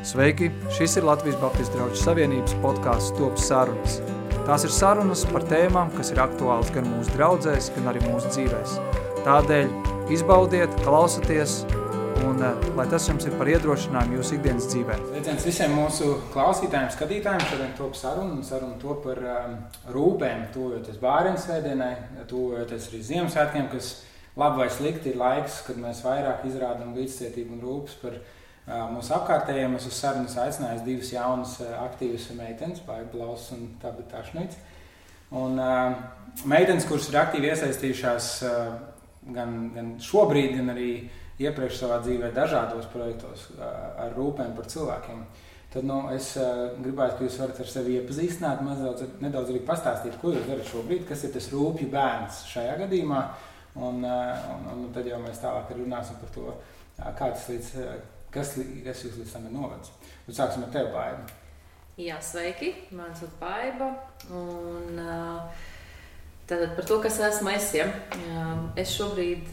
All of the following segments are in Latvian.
Sveiki! Šis ir Latvijas Baptistu draugu savienības podcasts Top sarunas. Tās ir sarunas par tēmām, kas ir aktuāls gan mūsu draudzēs, gan arī mūsu dzīvēs. Tādēļ izbaudiet, klausieties, un lai tas jums ir par iedrošinājumu jūsu ikdienas dzīvē. Sveiciens visiem mūsu klausītājiem, skatītājiem. Šodien top saruna top par rūpēm, tuvojoties bāriņu svētdienai, tuvojoties arī Ziemassvētkiem, kas labi vai slikti ir laiks, kad mēs vairāk izrādām līdzcietību un rūpes par mūsu apkārtējiem. Es uz sarunas aicināju divas jaunas aktīvas meitenes, Baiba Blauss un Tabita Šnic. Un meitenes, kuras ir aktīvi iesaistījušās gan šobrīd, gan arī iepriekš savā dzīvē dažādos projektos ar rūpēm par cilvēkiem. Tad es gribētu, ka jūs varat ar sevi iepazīstināt, nedaudz arī pastāstīt, ko jūs darat šobrīd, kas ir tas rūpju bērns šajā gadījumā. Un tad jau mēs tālāk runāsim par to, kā tas kas jūs līdz tam ir novedis. Un sāksim ar tevi, Baiba. Jā, sveiki, man sauc Baiba. Un tātad par to, kas esmu es. Ja? Es šobrīd,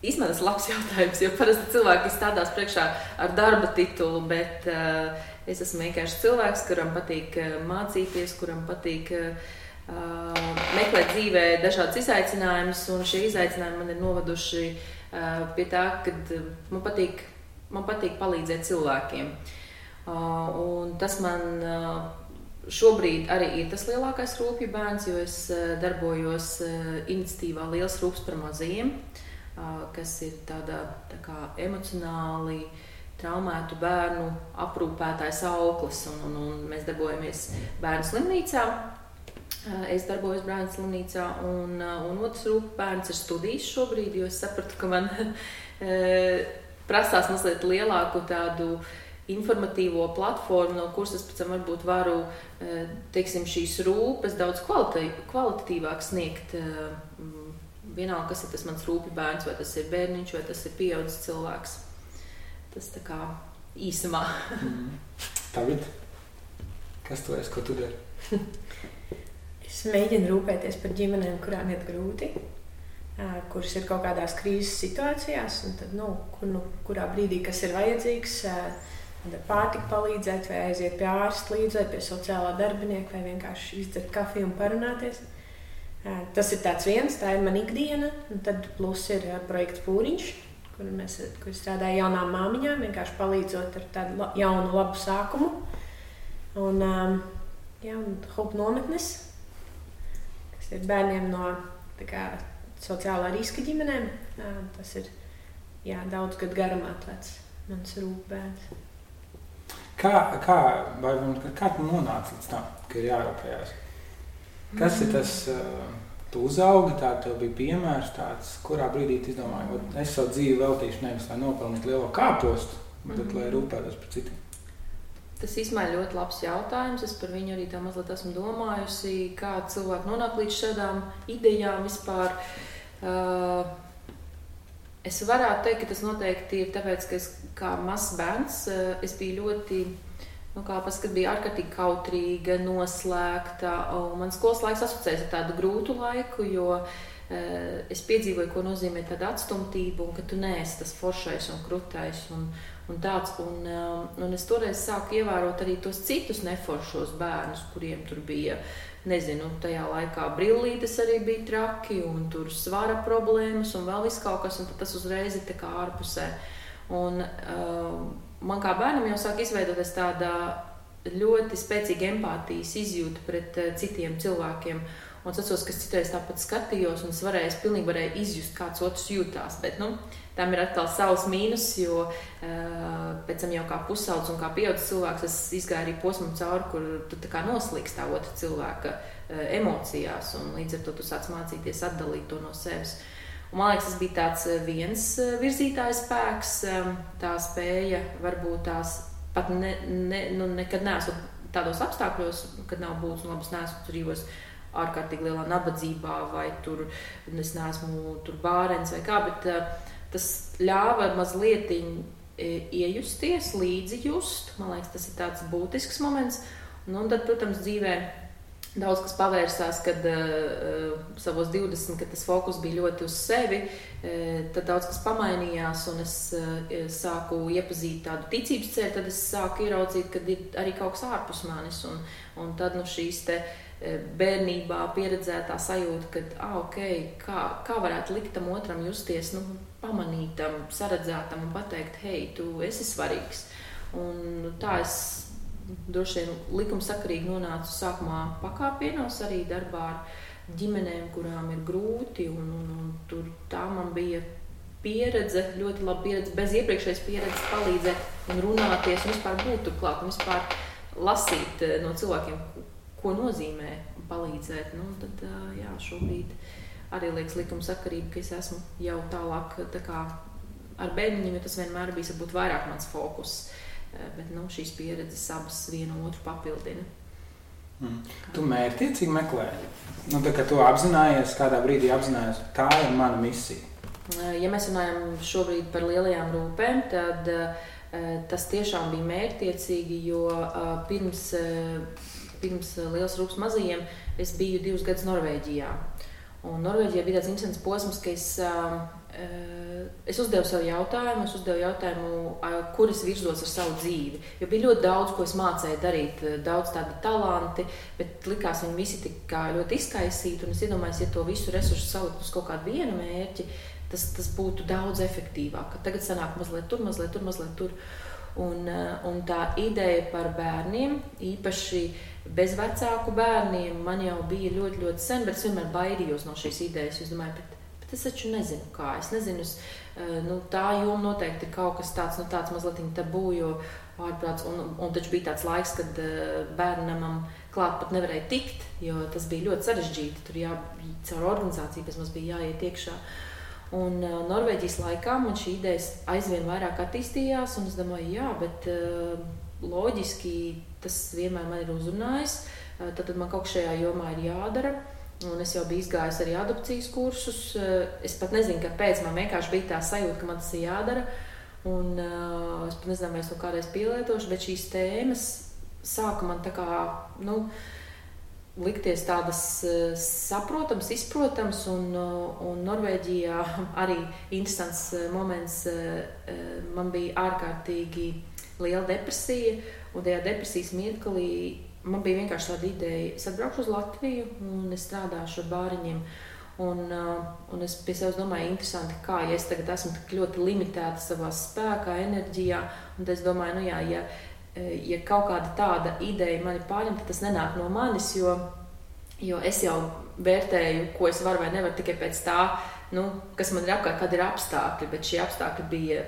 īstenībā tas ir labs jautājums, jo parasti cilvēki stādās priekšā ar darba titulu, bet es esmu vienkārši cilvēks, kuram patīk mācīties, kuram patīk meklēt dzīvē dažādas izaicinājumus, un šie izaicinājumi man ir novaduši pie tā, ka man patīk palīdzēt cilvēkiem. Un tas man šobrīd arī ir tas lielākais rūpju bērns, jo es darbojos iniciatīvā Liels rūps par mazajiem, kas ir tāda tā kā emocionāli traumētu bērnu aprūpētājs auklis, un mēs darbojamies bērnu slimnīcā. Es darbojos bērnu slimnīcā, un otrs rūpju bērns ir studijas šobrīd, jo es sapratu, ka man prasās mazliet lielāku tādu informatīvo platformu, no kuras es pēc tam varbūt varu, teiksim, šīs rūpes daudz kvalitatīvāk sniegt. Vienalga, kas ir tas mans rūpju bērns, vai tas ir bērniņš, vai tas ir pieaudzis cilvēks. Tas tā kā īsumā. Tagad, kas tu esi, ko tu dari? Es mēģinu rūpēties par ģimenēm, kurām iet grūti, kuras ir kaut kādās krīzes situācijās, un tad, kurā brīdī, kas ir vajadzīgs, ar pārtiku palīdzēt, vai aiziet pie ārsta līdzi, vai pie sociālā darbinieka, vai vienkārši izdzert kafiju un parunāties. Tas ir tāds viens, tā ir man ikdiena, un tad plus ir projekts Pūriņš, kur strādāju jaunām māmiņām, vienkārši palīdzot ar tādu jaunu, labu sākumu. Un Hope nometnes, kas ir bērniem no sociālā riska ģimenēm. Tas ir daudz gadu garumā tāds mans rūpbērns. Kā tu nonāci līdz tam, ka ir jārūpējās? Kas ir tas, tu uzaugi, tev bija piemērs tāds, kurā brīdī tu izdomāji, es savu dzīvi veltīšu nevis, lai nopelnītu lielo kāpostu, bet lai rūpētos par citiem? Tas īstenībā ir ļoti labs jautājums. Es par viņu arī tā mazliet esmu domājusi, kā cilvēki nonāk līdz šādām idejām vispār. Es varētu teikt, ka tas noteikti ir tāpēc, ka es kā mazs bērns, es biju ļoti, kad biju ārkārtīgi kautrīga, noslēgta, un man skolas laiks asociējas ar tādu grūtu laiku, jo es piedzīvoju, ko nozīmē tāda atstumtība, un ka tu neesi tas foršais un krutais un tāds, un es toreiz sāku ievērot arī tos citus neforšos bērnus, kuriem tur bija, tajā laikā brillītes arī bija traki, un tur svara problēmas, un vēl viss kaut kas, un tas uzreiz ir tā kā ārpusē. Un man kā bērnam jau sāk izveidoties tāda ļoti spēcīga empātijas izjūta pret citiem cilvēkiem. Un es atceros, ka es citreiz tāpat skatījos, un es pilnīgi varēju izjust, kāds otrs jūtās, bet, tam ir atkal savs mīnus, jo pēc tam jau kā pusaudz un kā pieaudzis cilvēks, es izgāju arī posmu cauri, kur tu tā kā noslīgst tā otra cilvēka emocijās, un līdz ar to tu sāc mācīties atdalīt to no sevis. Un man liekas, tas bija tāds viens virzītājs spēks, tā spēja varbūt tās pat nekad neesmu tādos apstākļos, kad nav būtis un labas neesmu dzīvos ārkārtīgi lielā nabadzībā, vai tur es neesmu tur bārens vai kā, bet tas ļāva mazliet iejusties, līdzi just. Man liekas, tas ir tāds būtisks moments. Un tad, protams, dzīvē daudz kas pavērsās, kad savos 20, kad tas fokus bija ļoti uz sevi, tad daudz kas pamainījās, un es sāku iepazīt tādu ticības ceļu, tad es sāku ieraudzīt, kad ir arī kaut kas ārpus manis, un tad šīs te bērnībā pieredzētā sajūta, ka kā varētu likt tam otram justies, pamanītam, saredzētam un pateikt, hei, tu esi svarīgs. Un tā es droši vien likumsakarīgi nonācu sākumā pakāpienos arī darbā ar ģimenēm, kurām ir grūti, un tur tā man bija pieredze, ļoti laba pieredze, bez iepriekšējas pieredzes palīdzēt un runāties, un vispār būt tur klāt, un vispār lasīt no cilvēkiem, ko nozīmē palīdzēt. Tad, šobrīd arī liekas likumsakarība, ka es esmu jau tālāk tā kā ar bērniņiem, jo tas vienmēr bijis varbūt vairāk mans fokus. Bet šīs pieredzes abas vienu otru papildina. Tu mērķtiecīgi meklē? Tā kā tu apzinājies, kādā brīdī apzinājies, tā ir mana misija. Ja mēs runājam šobrīd par lielajām rūpēm, tad tas tiešām bija mērķtiecīgi, jo pirms Lielas rūpes mazajiem es biju 2 gadus Norvēģijā. Un Norvēģijā bija tāds interesants posms, ka es uzdevu sev jautājumu, kur es virzos ar savu dzīvi. Jo bija ļoti daudz, ko es mācēju darīt, daudz tādi talanti, bet likās viņi visi tik kā ļoti izkaisīti. Un es iedomājos, ja to visu resursu salikt uz kaut kādu vienu mērķi, tas būtu daudz efektīvāk. Tagad sanāk mazliet tur. Un tā ideja par bērniem, īpaši bezvecāku bērniem, man jau bija ļoti, ļoti sen, bet es vienmēr baidījos no šīs idejas. Es domāju, bet es taču nezinu kā. Es nezinu, tā joma noteikti ir kaut kas tāds mazliet tabū, jo ārprāts, un taču bija tāds laiks, kad bērnamam klāt pat nevarēja tikt, jo tas bija ļoti sarežģīti. Tur caur organizāciju, kas mums bija jāiet iekšā. Un Norvēģijas laikā man šī ideja aizvien vairāk attīstījās, un es domāju, bet loģiski tas vienmēr man ir uzrunājis, tad man kaut kas šajā jomā ir jādara. Un es jau biju izgājis arī adopcijas kursus. Es pat nezinu, kāpēc man vienkārši bija tā sajūta, ka man tas ir jādara. Un es pat nezinu, vai es to kādreiz pielietošu, bet šīs tēmas sāka man tā kā, likties tādas saprotams, izprotams, un Norvēģijā arī interesants moments. Man bija ārkārtīgi liela depresija, un tajā depresijas mirklī man bija vienkārši tāda ideja, es atbraukšu uz Latviju un es strādāšu ar bāriņiem. Un es pie sevis domāju, interesanti, kā ja es tagad esmu tik ļoti limitēta savā spēkā, enerģijā, un es domāju, ja kaut kāda tāda ideja mani pārņem, tad tas nenāk no manis, jo es jau vērtēju, ko es varu vai nevaru tikai pēc tā, kas man ir apkārt, kad ir apstākļi, bet šie apstākļi bija,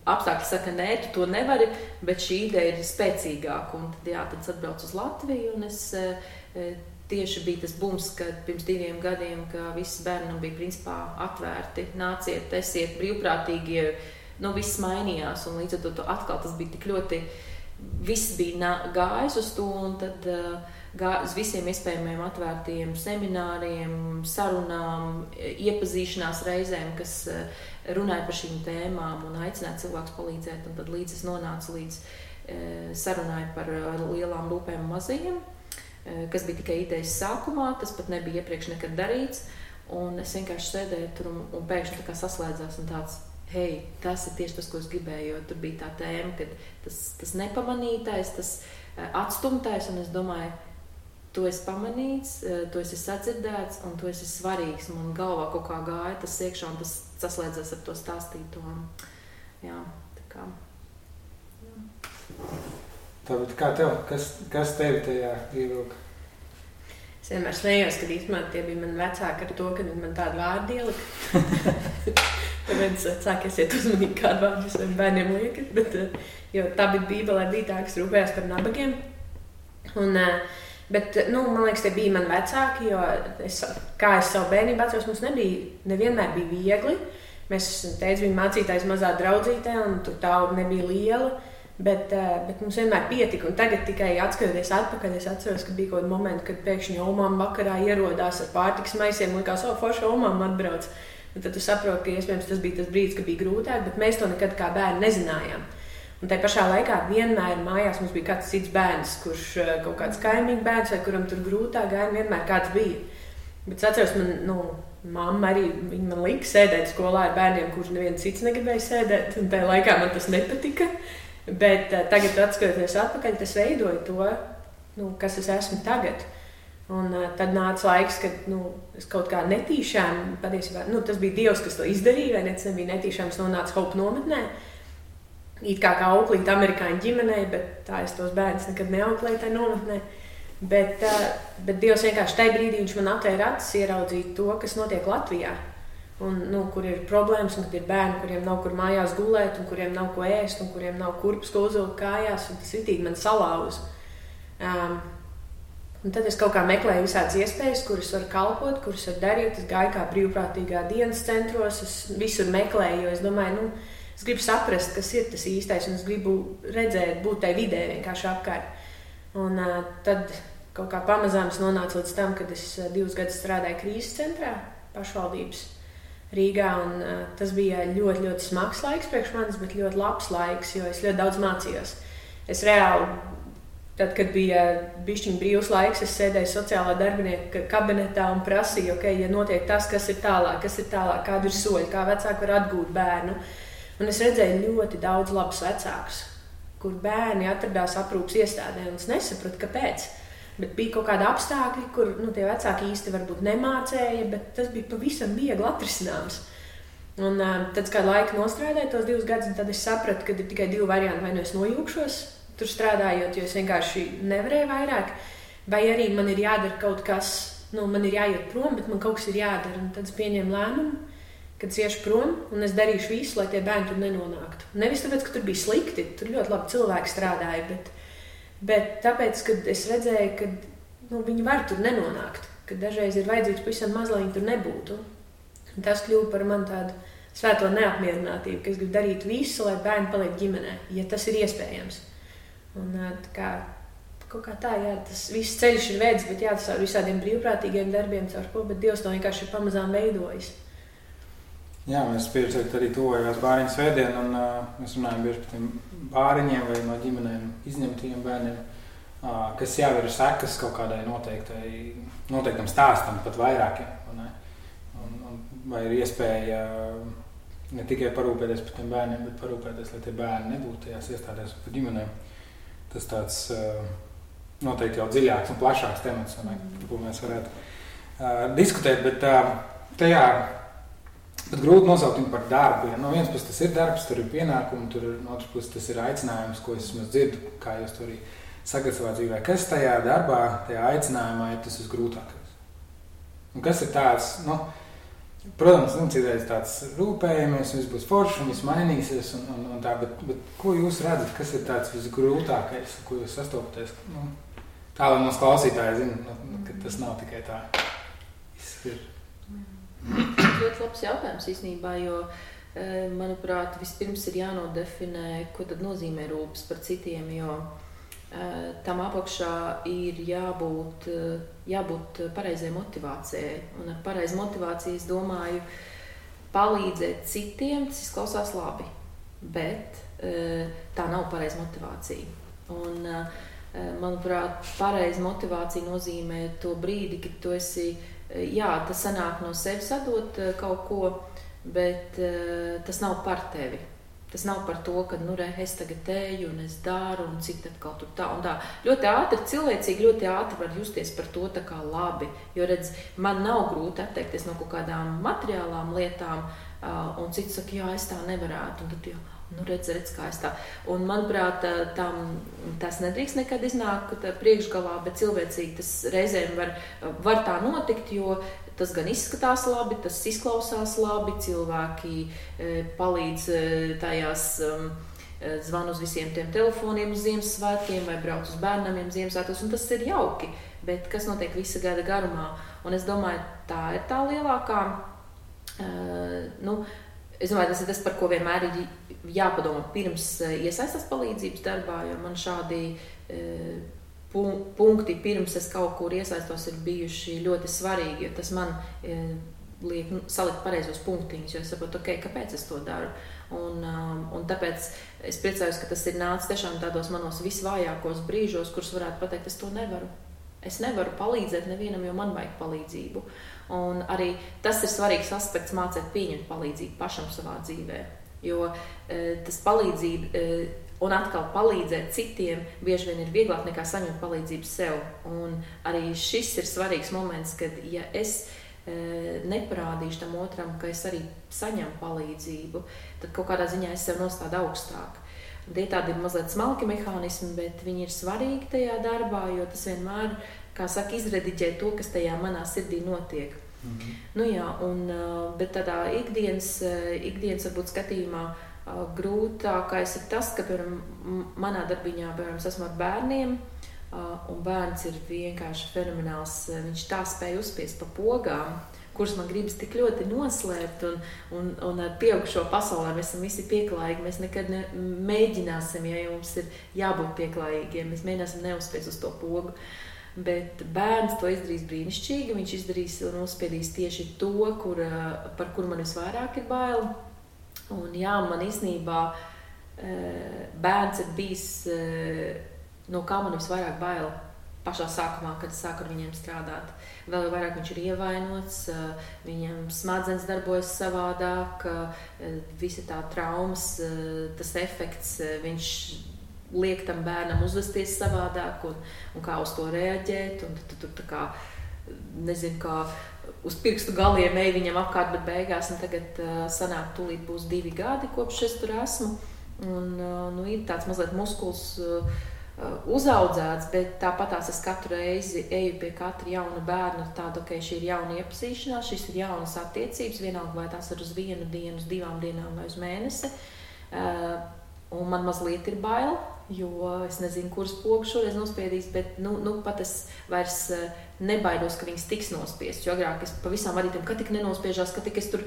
apstākļi saka, nē, tu to nevari, bet šī ideja ir spēcīgāka, un tad es atbraucu uz Latviju, un es tieši bija tas bums, kad pirms 2 gadiem, ka visi bērni bija principā atvērti, nāciet, esiet brīvprātīgi, viss mainījās, un līdz ar to atkal tas bija tik ļoti, viss bija gājis uz to, un tad uz visiem iespējamiem atvērtiem semināriem, sarunām, iepazīšanās reizēm, kas runāja par šīm tēmām un aicināja cilvēkus palīdzēt, un tad līdz es nonācu līdz sarunai par lielām rūpēm mazajiem, kas bija tikai idejas sākumā, tas pat nebija iepriekš nekad darīts, un es vienkārši sēdēju tur un pēkšņi tā kā saslēdzās un tāds, hei, tas ir tieši tas, ko es gribēju, jo tur bija tā tēma, ka tas nepamanītais, tas atstumtais, un es domāju, tu esi pamanīts, tu esi sadzirdēts, un tu esi svarīgs, man galvā kaut kā gāja tas iekšā, un tas saslēdzās ar to stāstīto. Jā, tā kā. Tāpēc kā tev? Kas tevi tajā ievilka? Es vienmēr smējos, kad īstenībā tie bija mani vecāki ar to, ka viņi man tādu vārdu ielika. Tāpēc vecāki esiet uzmanīgi, kādu vārdu jūs bērniem liekat. Bet, jo tā bija Bībelē, bija tā, kas rūpējās par nabagiem. Bet, man liekas, tie bija mani vecāki, jo kā es savu bērnību atceros, mums nevienmēr bija viegli. Mēs teicu, viņa mācītājs mazā draudzītē, un tur tauta nebija liela. Bet mums vienmēr pietika, un tagad tikai atskatoties atpakaļ, es atceros, ka bija kaut kādi momenti, kad pēkšņi omām vakarā ierodās ar pārtikas maisiem, likās, forši omām atbrauc. Un tad tu saproti, ka iespējams tas bija tas brīdis, kad bija grūtāk, bet mēs to nekad kā bērni nezinājām. Un tai pašā laikā vienmēr mājās mums bija kāds cits bērns, kurš kaut kāds kaimiņu bērns vai kuram tur grūtāk gāja, vienmēr kāds bija. Bet es atceros, mamma arī man lika sēdēt skolā ar bērniem, kurš neviens cits negribēja sēdēt, un tajā laikā man tas nepatika. Bet tagad, atskatoties atpakaļ, tas veidoja to, kas es esmu tagad. Un tad nāca laiks, kad es kaut kā netīšām, patiesībā, tas bija Dievs, kas to izdarīja, vai ne? Tas nebija netīšām, es nonācu Hope nometnē. It kā auklīt amerikāņu ģimenei, bet tā es tos bērnus nekad neauklēju tajā nometnē. Bet Dievs vienkārši tajā brīdī viņš man atvēra acis ieraudzīt to, kas notiek Latvijā. Un, kur ir problēmas, un kad ir bērni, kuriem nav kur mājās gulēt, un kuriem nav ko ēst, un kuriem nav kurpes, ko uzvilkt kājās, un tas ritīgi man salauza. Un tad es kaut kā meklēju visādas iespējas, kuras var kalpot, kuras var darīt. Es gāju kā brīvprātīgā dienas centros, es visur meklēju, jo es domāju, es gribu saprast, kas ir tas īstais, un es gribu redzēt, būt tai vidē vienkārši apkārt. Un tad kaut kā pamazām es nonācu līdz tam, kad es 2 gadus strādāju krīzes centrā, pašvaldības Rīgā, un tas bija ļoti, ļoti smags laiks priekš manis, bet ļoti labs laiks, jo es ļoti daudz mācījos. Es reāli, tad, kad bija bišķiņ brīvs laiks, es sēdēju sociālā darbinieka kabinetā un prasīju, ja notiek tas, kas ir tālāk, kādi ir soļi, kā vecāki var atgūt bērnu. Un es redzēju ļoti daudz labus vecākus, kur bērni atradās aprūpas iestādē, un es nesapratu, kāpēc. Bet bija kaut kādi apstākļi, kur tie vecāki īsti varbūt nemācēja, bet tas bija pavisam viegli atrisināms. Un tad kādu laiku nostrādāju tos 2 gadus, un tad es sapratu, ka ir tikai 2 varianti. Vai es nojūkšos tur strādājot, jo es vienkārši nevarēju vairāk, vai arī man ir jādara kaut kas, man ir jāiet prom, bet man kaut kas ir jādara. Un tad es pieņēmu lēmumu, kad es iešu prom, un es darīšu visu, lai tie bērni tur nenonāktu. Nevis tāpēc, ka tur bija slikti, tur ļoti labi cilvēki strādāja, bet tāpēc, kad es redzēju, ka viņi var tur nenonākt, ka dažreiz ir vajadzīgs pavisam maz, lai viņi tur nebūtu. Un tas kļuva par man tādu svēto neapmierinātību, ka es gribu darīt visu, lai bērni paliek ģimenē, ja tas ir iespējams. Un kaut kā tā, tas viss ceļš ir veids, bet tas ar visādiem brīvprātīgiem darbiem, caur ko, bet Dievs to vienkārši ir pamazām veidojis. Jā, mēs pieredzējām arī tuvojās bāriņu svētdienu, un mēs runājam bieži par tiem bāriņiem vai no ģimenēm izņemtajiem bērniem, kas jau ir sekas kaut kādai noteiktam stāstam, pat vairākiem. Vai ir iespēja ne tikai parūpēties par tiem bērniem, bet parūpēties, lai tie bērni nebūtu tajās iestādēs par ģimenēm. Tas tāds noteikti jau dziļāks un plašāks temats, par ko mēs varētu diskutēt, bet tajā bet grūti nosaukt viņu par darbu. No vienas puses tas ir darbs, tur ir pienākumi, no otras puses tas ir aicinājums, ko es dzirdu, kā jūs to arī sakat savā dzīvē. Kas tajā darbā, tajā aicinājumā ir tas visgrūtākais? Un kas ir tāds, protams, citreiz tāds rūpējamies, viss būs forši un viss mainīsies un tā, bet ko jūs redzat, kas ir tāds visgrūtākais, ko jūs sastopaties? Tā, lai mums klausītāji zina, ka tas nav tikai tā. Ir. Ļoti labs jautājums īstenībā, jo, manuprāt, vispirms ir jānodefinē, ko tad nozīmē rūpes par citiem, jo tam apakšā ir jābūt pareizai motivācijai. Un ar pareizu motivāciju es domāju palīdzēt citiem, tas izklausās labi, bet tā nav pareiza motivācija. Un, manuprāt, pareiza motivācija nozīmē to brīdi, kad tu esi tas sanāk no sevis atdot kaut ko, bet tas nav par tevi. Tas nav par to, ka es tagad eju un es daru un cik atkal tur tā un tā. Ļoti ātri, cilvēcīgi ļoti ātri var justies par to tā kā labi, jo redz, man nav grūti atteikties no kaut kādām materiālām lietām un cits saka, jā, es tā nevarētu un tad jau, redz, kā es tā. Un, manuprāt, tas nedrīkst nekad iznākt priekšgalā, bet cilvēcīgi tas reizēm var tā notikt, jo tas gan izskatās labi, tas izklausās labi, cilvēki palīdz tajās zvan uz visiem tiem telefoniem uz Ziemassvētkiem vai brauc uz bērnamiem Ziemassvētkos, un tas ir jauki, bet kas notiek visa gada garumā? Un es domāju, tā ir tā lielākā, es domāju, tas ir tas, par ko vienmēr ir jāpadomā pirms iesaistās palīdzības darbā, jo man šādi punkti pirms es kaut kur iesaistos ir bijuši ļoti svarīgi, jo tas man liek salikt pareizos punktiņus, jo es saprotu, kāpēc es to daru. Un tāpēc es priecājos, ka tas ir nācis tiešām tādos manos visvājākos brīžos, kurus varētu pateikt, es to nevaru. Es nevaru palīdzēt nevienam, jo man vajag palīdzību. Un arī tas ir svarīgs aspekts mācīt pieņemt palīdzību pašam savā dzīvē. Jo tas palīdzība un atkal palīdzēt citiem bieži vien ir vieglāk nekā saņemt palīdzību sev. Un arī šis ir svarīgs moments, kad ja es neparādīšu tam otram, ka es arī saņemu palīdzību, tad kaut kādā ziņā es sev nostādu augstāk. Tie tādi ir mazliet smalki mehānismi, bet viņi ir svarīgi tajā darbā, jo tas vienmēr, kā saka, izrediģē to, kas tajā manā sirdī notiek. Nu jā, bet tādā ikdienas varbūt skatījumā grūtākais ir tas, ka, piemēram, manā darbiņā, piemēram, es esmu ar bērniem, un bērns ir vienkārši fenomenāls. Viņš tā spēja uzspiest pa pogām, kuras man gribas tik ļoti noslēpt, un ar pieaugušo pasaulē mēs esam visi pieklājīgi. Mēs nekad mēģināsim, ja mums ir jābūt pieklājīgiem, mēs mēģināsim neuzspiest uz to pogu. Bet bērns to izdarīs brīnišķīgi, viņš izdarīs un uzspiedīs tieši to, par kuru man visvairāk ir bail. Un jā, man īstenībā bērns ir bijis, no kā man visvairāk bail pašā sākumā, kad es sāku ar viņiem strādāt. Vēl vairāk viņš ir ievainots, viņam smadzenes darbojas savādāk, visa tā traumas, tas efekts, viņš liek tam bērnam uzvesties savādāk un kā uz to reaģēt. Un tu tā kā, nezinu, kā uz pirkstu galiem ej viņam apkārt, bet beigās, un tagad sanāk tūlīt būs 2 gadi, kopš es tur esmu. Un ir tāds mazliet muskuls uzaudzēts, bet tāpatās es katru reizi eju pie katra jauna bērna tādu, ka šī ir jauna iepazīšanās, šis ir jaunas attiecības, vienalga vai tās ir uz 1 dienu, uz 2 dienām vai uz mēnesi. Un man mazliet ir bail, jo es nezinu, kuras pogas šoreiz nospiedīs, bet pat es vairs nebaidos, ka viņas tiks nospiestas. Jo agrāk es pavisam vadītam, ka tik nenospiežās, ka tik es tur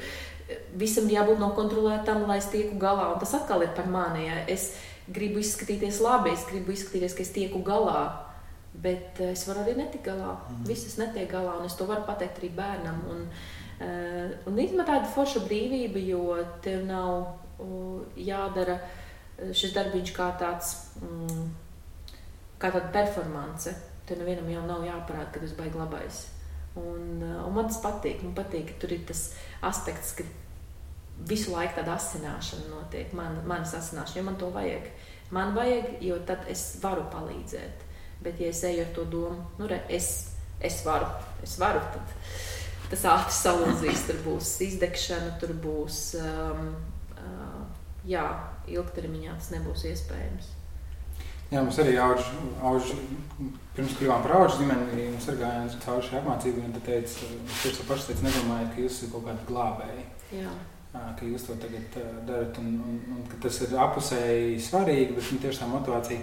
visam jābūt nokontrolētam, lai es tieku galā. Un tas atkal ir par mani, ja es gribu izskatīties labi, es gribu izskatīties, ka es tieku galā, bet es varu arī netikt galā. Visas netiek galā, un es to varu pateikt arī bērnam. Un īstenībā tāda forša brīvība, jo tev nav jādara šis darbiņš kā tāda performance. Tev nevienam jau nav jāparāda, ka tas baigi labais. Un man tas patīk. Man patīk, ka tur ir tas aspekts, ka visu laiku tāda asināšana notiek, manas asināšana, jo man to vajag. Man vajag, jo tad es varu palīdzēt. Bet ja es eju ar to domu, es varu, tad tas ātri salūzīs, tur būs izdegšana, tur būs, ilgtermiņā tas nebūs iespējams. Jā, mums arī auž pirms kļuvām par aužu ģimeni, mums arī gājām cauri šai apmācībai, un tad teica, paši teica, nedomājiet, ka jūs esat kaut kādi glābēji. Jā. Ka jūs to tagad darat, un ka tas ir apusēji svarīgi, bet tieši tā motivācija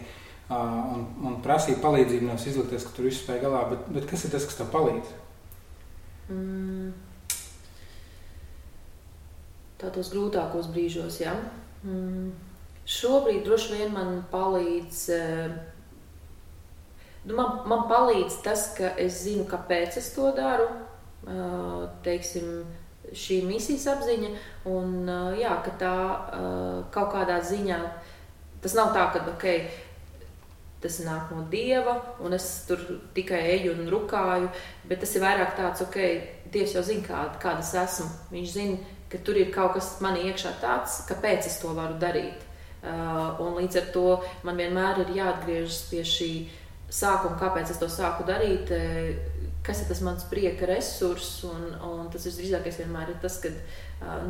un prasīja palīdzību nevis izlikties, ka tur visu spēj galā, bet kas ir tas, kas tev palīdz? Tādos grūtākos brīžos, jā. Šobrīd droši vien man palīdz, man palīdz tas, ka es zinu, kāpēc es to daru, teiksim, šī misijas apziņa, un ka tā kaut kādā ziņā, tas nav tā, ka, tas nāk no Dieva, un es tur tikai eju un rukāju, bet tas ir vairāk tāds, Dievs jau zina, kāda es esmu. Viņš zina, ka tur ir kaut kas manī iekšā tāds, kāpēc es to varu darīt. Un līdz ar to man vienmēr ir jāatgriežas pie šī sākuma, kāpēc es to sāku darīt, kas ir tas mans prieka resurss, un tas visdrīzākais vienmēr ir tas, ka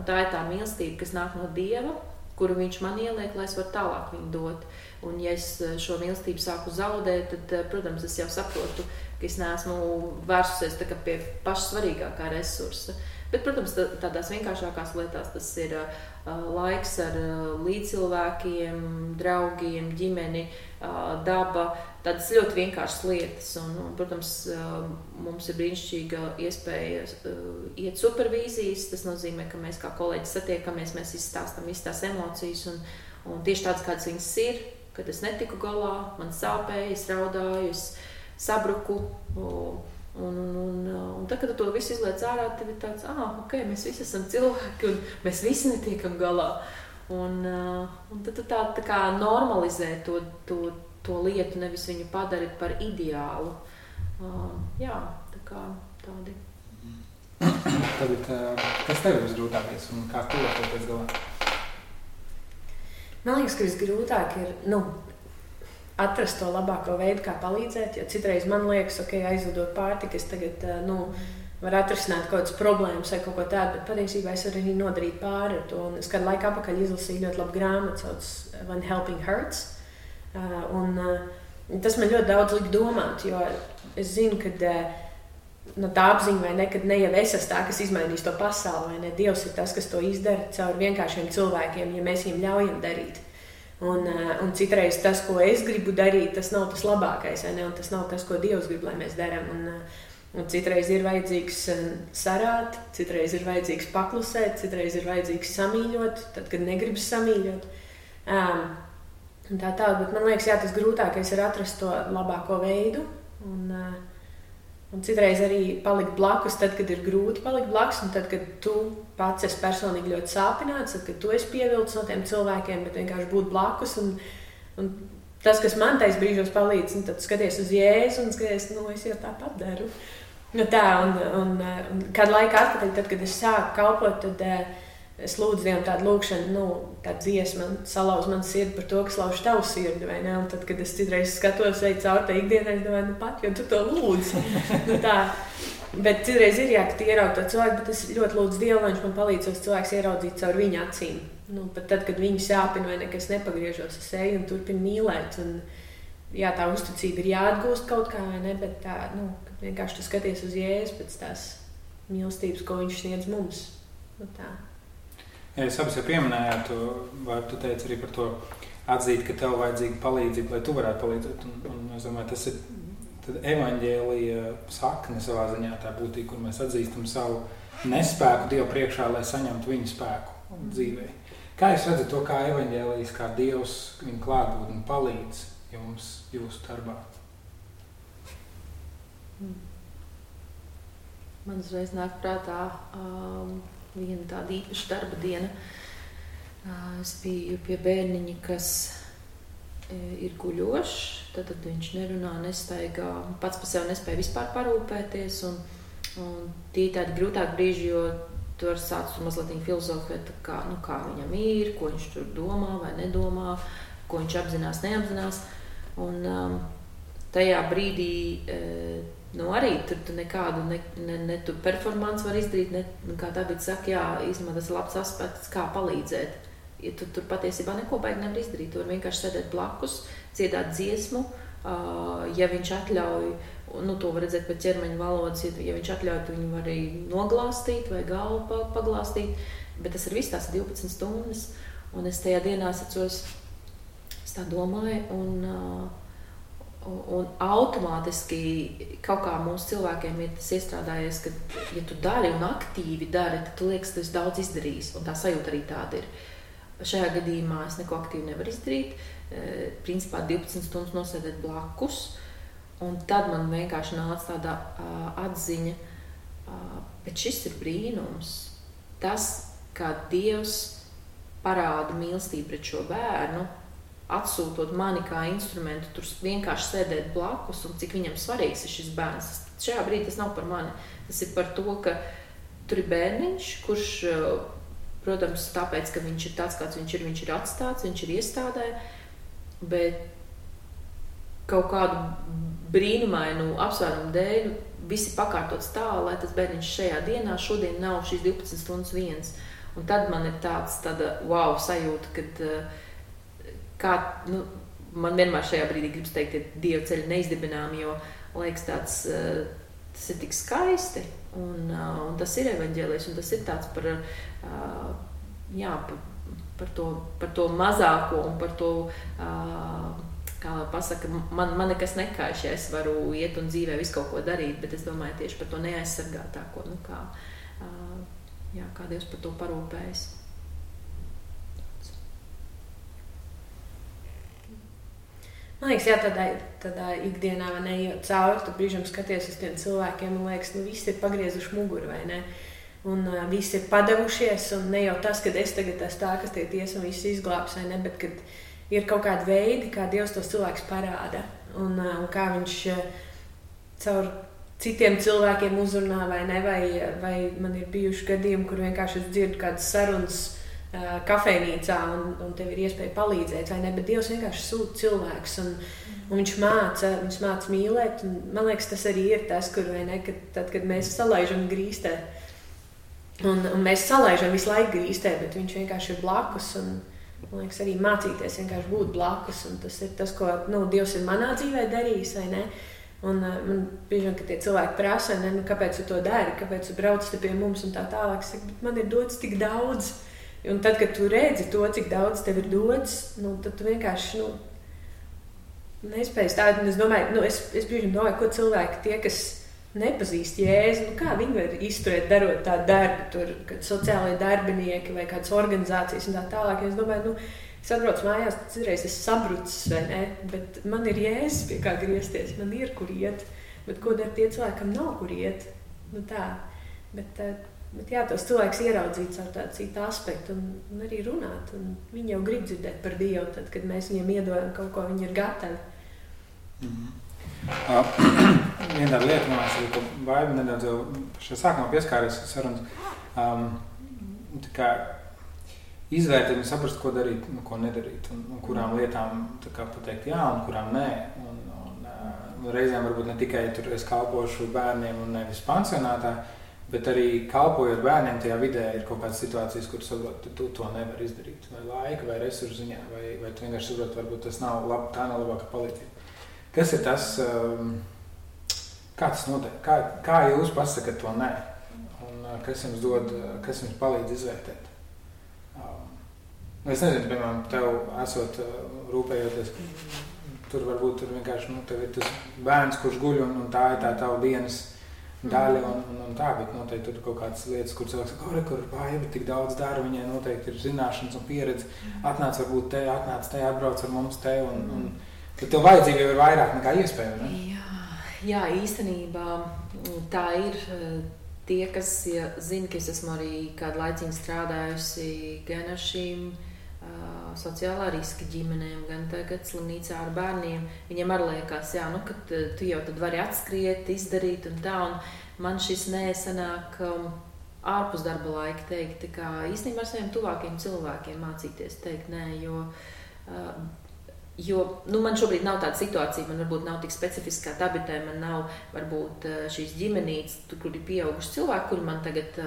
tā ir tā mīlestība, kas nāk no Dieva, kuru viņš man ieliek, lai es varu tālāk viņu dot. Un ja es šo mīlestību sāku zaudēt, tad, protams, es jau saprotu, ka es neesmu vērsusies tā kā pie paša svarīgākā resursa. Bet, protams, tādās vienkāršākās lietās tas ir laiks ar līdzcilvēkiem, draugiem, ģimeni, daba, tādas ļoti vienkāršas lietas. Un, protams, mums ir brīnišķīga iespēja iet supervīzijas. Tas nozīmē, ka mēs kā kolēģi satiekamies, mēs izstāstam visas tās emocijas un tieši tādas, kādas viņas ir, kad es netiku galā, man sāpēja, es raudāju, es sabruku. Un tad, kad tu to visu izliec ārā, tev ir tāds, mēs visi esam cilvēki un mēs visi netiekam galā. Un tad tu tā kā normalizē to lietu, nevis viņu padari par ideālu. Jā, tā kā tādi. Tagad, kas tev ir visgrūtākais un kā tu to pēc galā? Man liekas, ka visgrūtāk ir atrast to labāko veidu, kā palīdzēt. Jo citreiz man liekas, aizvedot pārtiku, es tagad var atrisināt kaut kādas problēmas vai kaut ko tādu, bet patiesībā es varu arī nodarīt pāri ar to. Un es kādu laiku apakaļ izlasīju ļoti labu grāmatu, sauc When Helping Hurts. Tas man ļoti daudz lika domāt, jo es zinu, ka tā apziņa vai ne, kad ne jau es esmu tā, kas izmainīs to pasauli, vai ne, Dievs ir tas, kas to izdara caur vienkāršiem cilvēkiem, ja mēs viņiem ļaujam darīt. Un citreiz tas, ko es gribu darīt, tas nav tas labākais, vai ne, un tas nav tas, ko Dievs grib, lai mēs darām. Un citreiz ir vajadzīgs sarāt, citreiz ir vajadzīgs paklusēt, citreiz ir vajadzīgs samīļot, tad, kad negribas samīļot. Un tā, bet man liekas, tas grūtākais ir atrast to labāko veidu. Un citreiz arī palikt blakus, tad, kad ir grūti palikt blakus, un tad, kad tu pats esi personīgi ļoti sāpināts, tad, kad tu esi pievilcis no tiem cilvēkiem, bet vienkārši būt blakus. Un tas, kas man tais brīžos palīdz, tad skaties uz Jēzu un skaties, es jau tāpat daru. Un kādu laiku atpakaļ, tad, kad es sāku kalpot, tad es lūdzu Dievam tādu lūkšanu, tādu dziesmu, salauz man sirdi par to, kas lauž tavu sirdi, vai ne? Un tad, kad es citreiz skatos vai caur tā ikdienā, es domāju, pat, jo tu to lūdzi. Bet citreiz ir ka tu ieraugi to cilvēku, bet es ļoti lūdzu Dievu, lai viņš man palīdz tos cilvēkus ieraudzīt caur viņa acīm. Pat tad, kad viņi sāpina vai nekas nepagriežos, es eju un turpinu mīlēt. Un, tā uzticība ir jāatgūst kaut kā, vai ne, bet tā, vienkārši tu skaties uz Jēzu pēc tās mīlestības, ko viņš sniedz mums. Tā. Ja jūs abas jau pieminējāt, vai tu teici arī par to atzīt, ka tev vajadzīga palīdzība, lai tu varētu palīdzēt. Un es domāju, tas ir evaņģēlija sakne savā ziņā, tā būtība, kur mēs atzīstam savu nespēku Dievu priekšā, lai saņemtu viņa spēku dzīvē. Kā jūs redzat to, kā evaņģēlijas, kā Dievs viņa klātbūtni palīdz jums jūsu darbā? Man uzreiz nāk prātā viena tāda īpaša darba diena. Es biju pie bērniņa, kas ir guļošs, tad viņš nerunā, nestaigā, pats par sevi nespēja vispār parūpēties. Un tie tādi grūtāki brīži, jo tu vari sākt mazliet filozofēt, kā viņam ir, ko viņš tur domā vai nedomā, ko viņš apzinās, neapzinās. Un tajā brīdī arī tu nekādu ne tu performanci var izdarīt, kā tā bija saka, īstenībā tas ir labs aspekts, kā palīdzēt. Ja tu tur patiesībā neko baigi nevar izdarīt, tu var vienkārši sēdēt blakus, dziedāt dziesmu, ja viņš atļauj, to var redzēt pēc ķermeņa valodas, ja viņš atļauj, tu viņu var arī noglāstīt vai galvu paglāstīt, bet tas ir viss tās 12 stundas, un es tajā dienā atceros, es tā domāju, un automātiski kaut kā mūsu cilvēkiem ir tas iestrādājies, ka, ja tu dari un aktīvi dari, tad tu liekas, ka tu esi daudz izdarījis, un tā sajūta arī tāda ir. Šajā gadījumā es neko aktīvi nevaru izdarīt, principā 12 stundas nosēdēt blakus, un tad man vienkārši nāca tāda atziņa, bet šis ir brīnums. Tas, kā Dievs parāda mīlestību pret šo bērnu, atsūtot mani kā instrumentu, tur vienkārši sēdēt blakus, un cik viņam svarīgs ir šis bērns. Šajā brīdī tas nav par mani. Tas ir par to, ka tur ir bērniņš, kurš, protams, tāpēc, ka viņš ir tāds, kāds viņš ir atstāts, viņš ir iestādē, bet kaut kādu brīnumainu apsvērumu dēļ visi pakārtots tā, lai tas bērniņš šajā dienā šodien nav šīs 12 stundas viens. Un tad man ir tāda wow sajūta, kad man vienmēr šajā brīdī gribas teikt, ka Dieva ceļi neizdibināmi, jo liekas tas ir tik skaisti, un tas ir evaņģēlijs, un tas ir tāds par to mazāko un par to, kā pasaka, man nekas nekaiš, ja es varu iet un dzīvē visu kaut ko darīt, bet es domāju tieši par to neaizsargātāko, kā Dievs par to parūpējas. Man liekas, tādā ikdienā neejot cauri, tu brīžam skaties uz tiem cilvēkiem un liekas, visi ir pagriezuši muguru, vai ne? un visi ir padevušies, un ne jau tas, ka es tagad esmu tā, kas tiek tiesa un viss izglābs, vai ne, bet kad ir kaut kādi veidi, kā Dievs tos cilvēkus parāda, un kā viņš caur citiem cilvēkiem uzrunā, vai ne, vai man ir bijuši gadījumi, kur vienkārši es dzirdu kādas sarunas kafejnīcā, un tev ir iespēja palīdzēt, vai ne, bet Dievs vienkārši sūta cilvēkus, un viņš māca mīlēt, un man liekas, tas arī ir tas, kur, vai ne, kad mēs salaižam grīstē, un mēs salaižam visu laiku grīstē, bet viņš vienkārši ir blakus, un man liekas, arī mācīties vienkārši būt blakus, un tas ir tas, ko, Dievs ir manā dzīvē darījis, vai ne, un man bieži vien, ka tie cilvēki prasa, vai ne, kāpēc tu to dari, kāpēc tu brauc te pie mums un tā tālāk, es saku, bet man ir dots tik daudz, un tad, kad tu redzi to, cik daudz tev ir dots, tad tu vienkārši, nespēj stāt, un es domāju, es bieži vien domāju, ko cilvēki tie, kas nepazīst Jēzu, kā viņi var izturēt, darot tādu darbu, tur, kad sociālai darbinieki vai kādas organizācijas un tā tālāk. Es domāju, es atbraucu mājās, citreiz es sabrucis, vai ne, bet man ir Jēzus, pie kā griezties, man ir, kur iet, bet ko dar tie cilvēkam nav, kur iet, tā. Bet jā, tos cilvēks ieraudzīt ar tādu citu aspektu un arī runāt, un viņi jau grib dzirdēt par Dievu, tad, kad mēs viņiem iedodam kaut ko, viņi ir gatavi. Viena tāda lieta, man liekas, ka Baiba nedaudz jau šajā sākumā pieskāries sarunas, tā kā izvērtēt un saprast, ko darīt, ko nedarīt, un kurām lietām tā kā pateikt jā, un kurām nē, un reizēm varbūt ne tikai tur es kalpošu bērniem un nevis pansionātā, bet arī kalpojot bērniem tajā vidē ir kaut kādas situācijas, kuras varbūt tu to nevar izdarīt, vai laika, vai resursu ziņā, vai tu vienkārši saprot, varbūt tas nav tā nav labāka palīdzība. Kas ir tas, kā tas notiek? Kā jūs pasakat to nē? Un kas jums palīdz izvērtēt? Es nezinu, piemēram, tev esot rūpējoties, tur varbūt vienkārši, tev ir tas bērns, kurš guļ, un tā ir tā tava dienas daļa, un tā, bet noteikti tur kaut kādas lietas, kur cilvēks saka, kur Baiba tik daudz dara, viņai noteikti ir zināšanas un pieredze, atnāc varbūt te, atbrauc ar mums te, un tad tev vajadzība jau ir vairāk nekā iespēja, ne? Jā, īstenībā tā ir tie, kas zina, ka es esmu arī kādu laiciņu strādājusi gan ar šīm sociālā riska ģimenēm, gan tagad slimnīcā ar bērniem. Viņiem arī liekas, ka tu jau tad vari atskriet, izdarīt un tā, un man šis nesanāk ārpus darba laika teikt, tā kā īstenībā ar saviem tuvākiem cilvēkiem mācīties teikt nē, jo man šobrīd nav tāda situācija, man varbūt nav tik specifiski kā tabitē, man nav varbūt šīs ģimenītes, kur ir pieauguši cilvēki, kuri man tagad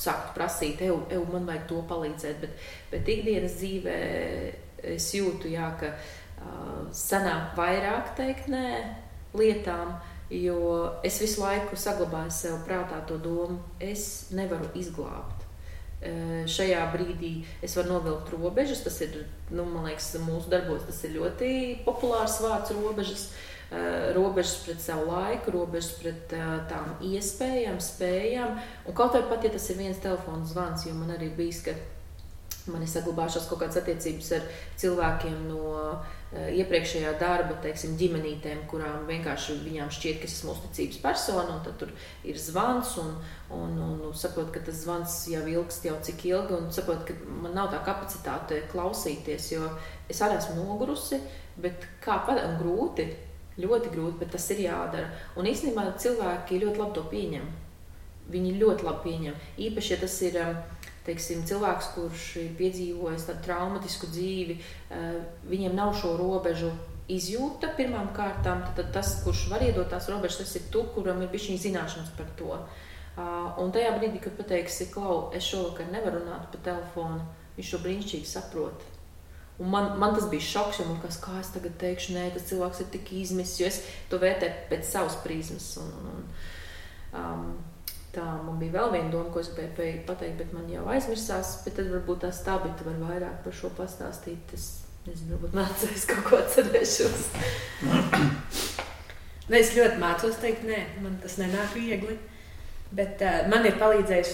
sāktu prasīt, man vajag to palīdzēt, bet ikdienas dzīvē es jūtu, ka sanāk vairāk teikt nē lietām, jo es visu laiku saglabāju sev prātā to domu, es nevaru izglābt. Šajā brīdī es varu novilkt robežas, tas ir, man liekas, mūsu darbos tas ir ļoti populārs vārds robežas, robežas pret savu laiku, robežas pret tām iespējām, spējām, un kaut vai pat, ja tas ir viens telefona zvans, jo man arī bijis, ka man ir saglabājušās kaut kādas attiecības ar cilvēkiem no iepriekšējā darba, teiksim, ģimenītēm, kurām vienkārši viņām šķiet, ka es esmu uzticības persona, un tad tur ir zvans, un saprot, ka tas zvans jau ilgst jau cik ilgi, un saprot, ka man nav tā kapacitāte klausīties, jo es arī esmu nogurusi, bet un grūti, ļoti grūti, bet tas ir jādara. Un īstenībā cilvēki ļoti labi to pieņem. Viņi ļoti labi pieņem. Īpaši, ja tas ir teiksim, cilvēks, kurš ir piedzīvojis tādu traumatisku dzīvi, viņiem nav šo robežu izjūta pirmām kārtām, tad tas, kurš var iedot tās robežas, tas ir tu, kuram ir bišķiņ zināšanas par to. Un tajā brīdī, kad pateiksi, Klau, es šovakar nevaru runāt pa telefonu, viņš to brīnišķīgi saprot. Un man tas bija šoks, jo man kā es tagad teikšu, nē, tas cilvēks ir tik izmisis, jo es to vērtēju pēc savas prizmas. Tā, man bija vēl viena doma, ko es gribēju pateikt, bet man jau aizmirsās, bet tad varbūt tās Tabita var vairāk par šo pastāstīt. Es nezinu, varbūt mācījos kaut ko atcerēšos. Es ļoti mācos teikt, nē, man tas nenāk viegli, bet man ir palīdzējis,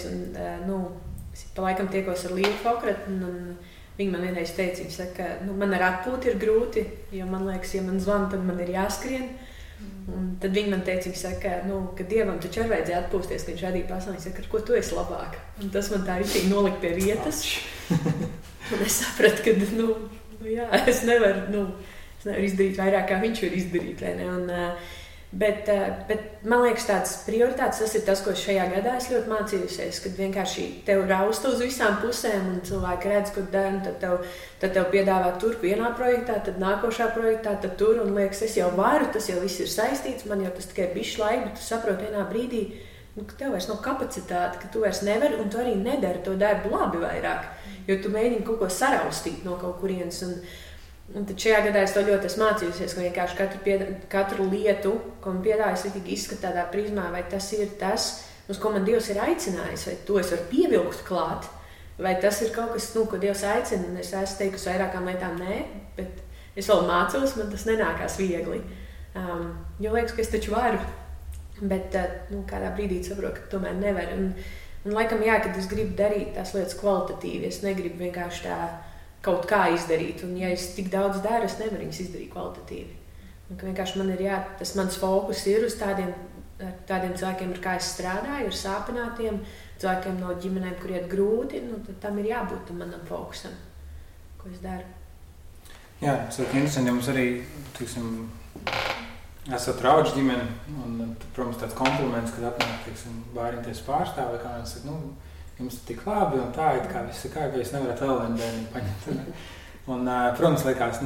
es pa laikam tiekos ar Līvu Fokrat, un viņa man vienreiz teica, viņa saka, man ar atpūti ir grūti, jo man liekas, ja man zvana, tad man ir jāskrien. Un tad viņi man teica, viņi saka, ka Dievam taču arī vajadzēja atpūsties, ka viņš radīja pasauli. Viņš saka, ar ko tu esi labāk? Un tas man tā ritīgi nolika pie vietas. Un es sapratu, ka, jā, es nevaru izdarīt vairāk, kā viņš var izdarīt, vai ne? Bet man liekas, tāds prioritāts, tas ir tas, ko šajā gadā es ļoti mācījusies, kad vienkārši tev rausta uz visām pusēm un cilvēki redz, ko dara, un tad tev piedāvā tur vienā projektā, tad nākošā projektā, tad tur, un liekas, es jau varu, tas jau viss ir saistīts, man jau tas tikai bišķi laika, bet tu saproti vienā brīdī, ka tev vairs nav kapacitāte, ka tu vairs nevari, un tu arī nedari to darbu labi vairāk, jo tu mēģini kaut ko saraustīt no kaut kurienes, un tad šajā gadā es to ļoti esmu mācījusies, ka vienkārši katru lietu, ko man piedāvā, es arī izskatu tādā prizmā, vai tas ir tas, uz ko man Dievs ir aicinājis, vai to es varu pievilkt klāt, vai tas ir kaut kas, ko Dievs aicina, un es esmu teikusi vairākām lietām nē, bet es vēl mācos, man tas nenākās viegli, jo liekas, ka es taču varu, bet kādā brīdī saprotu, ka tomēr nevar, un laikam jā, kad es gribu darīt tās lietas kvalitatīvi, es negribu vienkārši tā kaut kā izdarīt, un ja es tik daudz daru, es nevaru viņus izdarīt kvalitatīvi. Un ka vienkārši man ir tas mans fokus ir uz tādiem cilvēkiem, ar kā es strādāju, ar sāpinātiem, cilvēkiem no ģimenēm, kur iet grūti, tad tam ir jābūt tam manam fokusam, ko es daru. Jā, tas ir interesanti, ja mums arī, esat raudžu ģimeni, un, protams, tāds kompliments, kad atnāk, bāriņties pārstāvi, kā viens saka, jums ir tik labi un tā, it kā viss ir kā, ka jūs nevarat vēl vienu bērnu paņemt. Un, protams, liekas,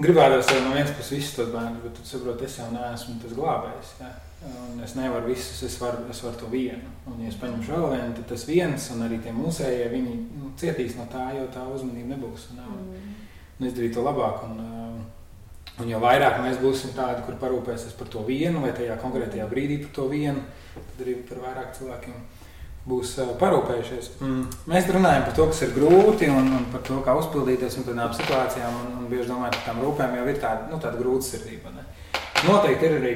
gribētos jau no vienas puses visus tos bērnus, bet tu saproti, es jau neesmu tas glābējs. Ja? Un es nevaru visus, es varu to vienu. Un, ja es paņemšu vēl vienu, tad tas viens un arī tie mūsējie, viņi cietīs no tā, jo tā uzmanība nebūs. Un izdarīt to labāk. Un jo vairāk mēs būsim tādi, kur parūpēsies par to vienu vai tajā konkrētajā brīdī par to vienu, tad arī par vairāk cilvēkiem būs parūpējušies. Mēs runājam par to, kas ir grūti un par to, kā uzpildīties un tādām situācijām un bieži domājam, ka tām rūpēm jau ir tāda grūtsirdība. Ne? Noteikti ir arī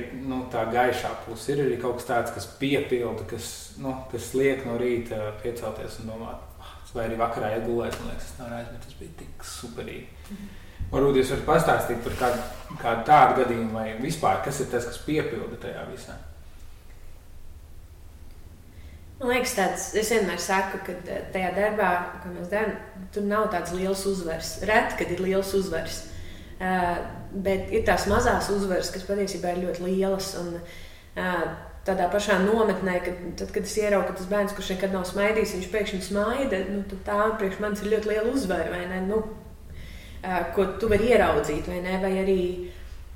tā gaišā puse, ir arī kaut kas tāds, kas piepilda, kas liek no rīta piecelties un domāt, vai arī vakarā iegulēt, man liekas, bet tas bija tik superīgi. Varbūt jūs varat pastāstīt par kādu tādu gadījumu vai vispār, kas ir tas, kas piepilda tajā visā? Man liekas, es vienmēr saku, ka tajā darbā, ko mēs darām, tur nav tāds liels uzvars. Reti, kad ir liels uzvars. Bet ir tās mazās uzvaras, kas patiesībā ir ļoti lielas. Un tādā pašā nometnē, kad es ieraugu, ka tas bērns, kurš nekad nav smaidījis, viņš pēkšņi smaida, tad tā priekš manis ir ļoti liela uzvara, vai ne? Ko tu vari ieraudzīt, vai ne? Vai arī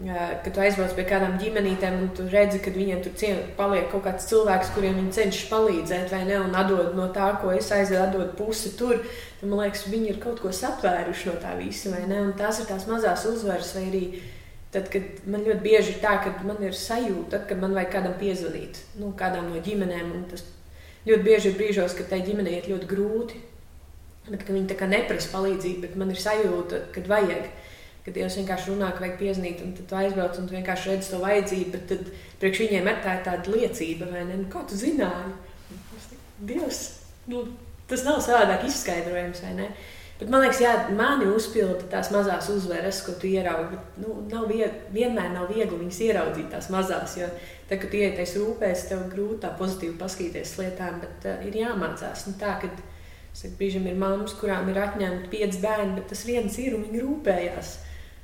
kad tu aizbrauc pie kādām ģimenītēm un tu redzi, ka viņiem tur paliek kaut kāds cilvēks, kuriem viņi cenšas palīdzēt, vai ne, un atdod no tā, ko es atdod pusi tur, tad man liekas, viņi ir kaut ko satvēruši no tā visa, vai ne, un tās ir tās mazās uzvaras, vai arī tad, kad man ļoti bieži ir tā, ka man ir sajūta, ka man vajag kādam piezvanīt, kādām no ģimenēm, un tas ļoti bieži ir brīžos, ka tai ģimenei iet ļoti grūti, bet ka viņi tā kā neprasa palīdzību, bet man ir sajūta, kad vajag. Kad Dievs vienkārši runā, ka vajag piezinīt, un tad tu aizbrauc un tu vienkārši redzi to vajadzību, bet tad priekš viņiem ir tāda liecība, vai ne? Kā tu zināji? Dievs, tas nav savādāk izskaidrojams, vai ne? Bet man liekas, jā, mani uzpilda tās mazās uzvaras, ko tu ieraugi, bet vienmēr nav viegli viņas ieraudzīt tās mazās, jo tad, kad tu ieties rūpēs, tev grūti tā pozitīvi paskatīties lietām, bet ir jāmācās. Tā, kad brīžam ir mammas, kurām ir atņemti 5 bērni, bet tas viens ir un viņi rūpējās.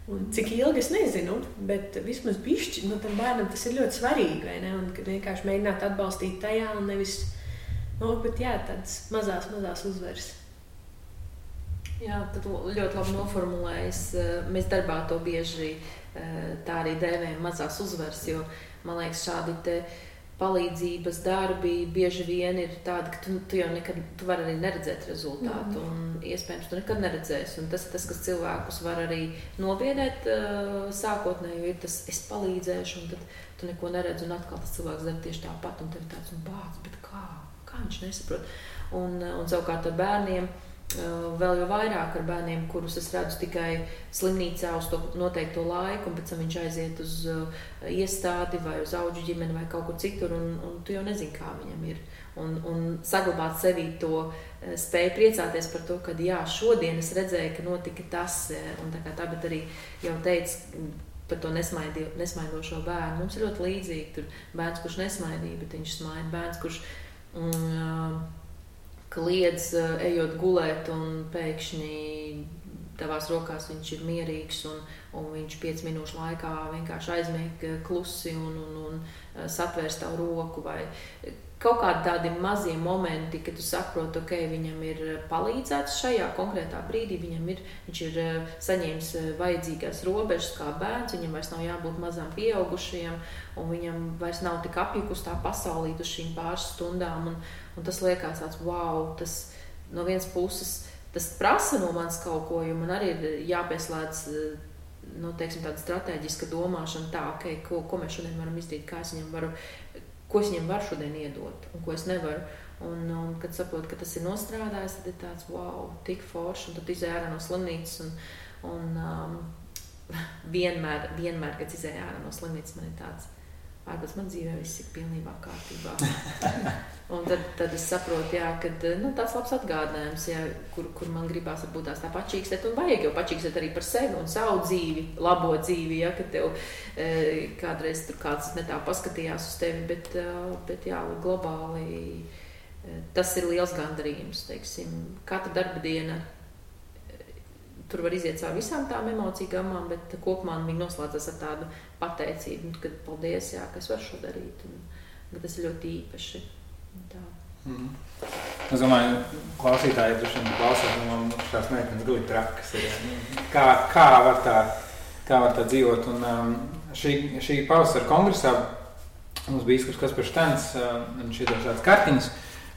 Un cik ilgi es nezinu, bet vismaz bišķi, tam bērnam tas ir ļoti svarīgi, vai ne? Un kad vienkārši mēģināt atbalstīt tajā un nevis, bet jā, tādas mazās uzvaras. Jā, tad ļoti labi noformulējis. Mēs darbā to bieži tā arī dēvējam mazās uzvaras, jo, man liekas, šādi palīdzības darbi bieži vien ir tādi, ka tu jau nekad, tu vari arī neredzēt rezultātu, un iespējams tu nekad neredzēsi, un tas ir tas, kas cilvēkus var arī nobiedēt sākotnēji, jo ir tas, es palīdzēšu, un tad tu neko neredz, un atkal tas cilvēks dara tieši tāpat, un tev ir tāds, bāc, bet kā viņš nesaprot? Un savukārt ar bērniem, vēl jau vairāk ar bērniem, kurus es redzu tikai slimnīcā uz to noteikto laiku, un pēc tam viņš aiziet uz iestādi vai uz audžu ģimeni vai kaut kur citur, un tu jau nezini, kā viņam ir. Un saglabāt sevī to spēju priecāties par to, ka jā, šodien es redzēju, ka notika tas, un tā kā tā, bet arī jau teicu, par to nesmaidošo bērnu. Mums ir ļoti līdzīgi. Tur bērns, kurš nesmaidīja, bet viņš smaida. Bērns, kurš kliedz, ejot gulēt, un pēkšņi tavās rokās viņš ir mierīgs, un viņš 5 minūšu laikā vienkārši aizmieg klusi un satvērs tavu roku. Vai kaut kādi tādi mazie momenti, kad tu saproti, ok, viņam ir palīdzēts šajā konkrētā brīdī, viņš ir saņēmis vajadzīgās robežas kā bērns, viņam vairs nav jābūt mazām pieaugušajiem, un viņam vairs nav tik apjukus tā pasaulīt uz šīm pāris stundām, un tas liekas tāds, wow, tas no vienas puses, tas prasa no manis kaut ko, jo man arī ir jāpieslēdz, teiksim, tāda strateģiska domāšana tā, ok, ko mēs šodien varam izdarīt, ko es viņam varu šodien iedot, un ko es nevaru. Un kad saprotu, ka tas ir nostrādājis, tad ir tāds, wow, tik forši, un tad izēj ārā no slimnīcas, un vienmēr, kad izēj ārā no slimnīcas, man ir tāds, ārpēc man dzīvē viss ir pilnībā kārtībā. Un tad es saprotu, jā, kad tāds labs atgādinājums, jā, kur man gribās varbūt tā pačīkstēt, un vajag jau pačīkstēt arī par sevi un savu dzīvi, labo dzīvi, ja, kad tev kādreiz tur kāds ne tā paskatījās uz tevi, bet jā, globāli tas ir liels gandarījums, teiksim, katra darba diena, tur var iziet caur visām tām emociju gammām, bet kopumā viņi noslēdzas ar tādu pateicību, kad paldies, jā, ka es varu šo darīt, un tas ir ļoti īpaši. Tā. Es domāju, klausītāji droši vien klausās, man šās meitenes guli trakas ir. Kā var tā dzīvot? Un šī pavasara kongresā mums bija izskurs Kaspars Štens, viņš ir tāds kartiņas,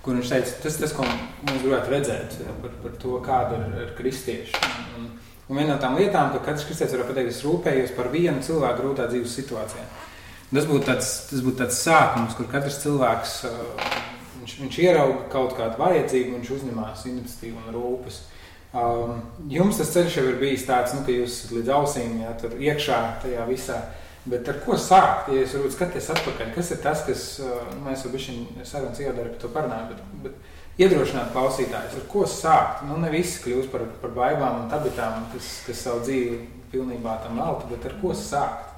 kur viņš teica, tas ko mums gribētu redzēt par to, kāda ir kristieši. Un viena no tām lietām, ka katrs kristietis var pateikt, es rūpējos par vienu cilvēku grūtā dzīves situācijā. Tas būtu tāds sākums, kur katrs cilvēks, viņš ierauga kaut kādu vajadzību, viņš uzņemās iniciatīvu un rūpes. Jums tas ceļš jau ir bijis tāds, ka jūs līdz ausīm, jā, tur iekšā tajā visā, bet ar ko sākt? Ja jūs varbūt skaties atpakaļ, kas ir tas, kas, mēs jau bišķiņ sarunas iedara par to parunāju, bet iedrošināt klausītājus, ar ko sākt? Ne visi kļūst par baibām un tabitām, kas savu dzīvi pilnībā tam velta, bet ar ko sākt?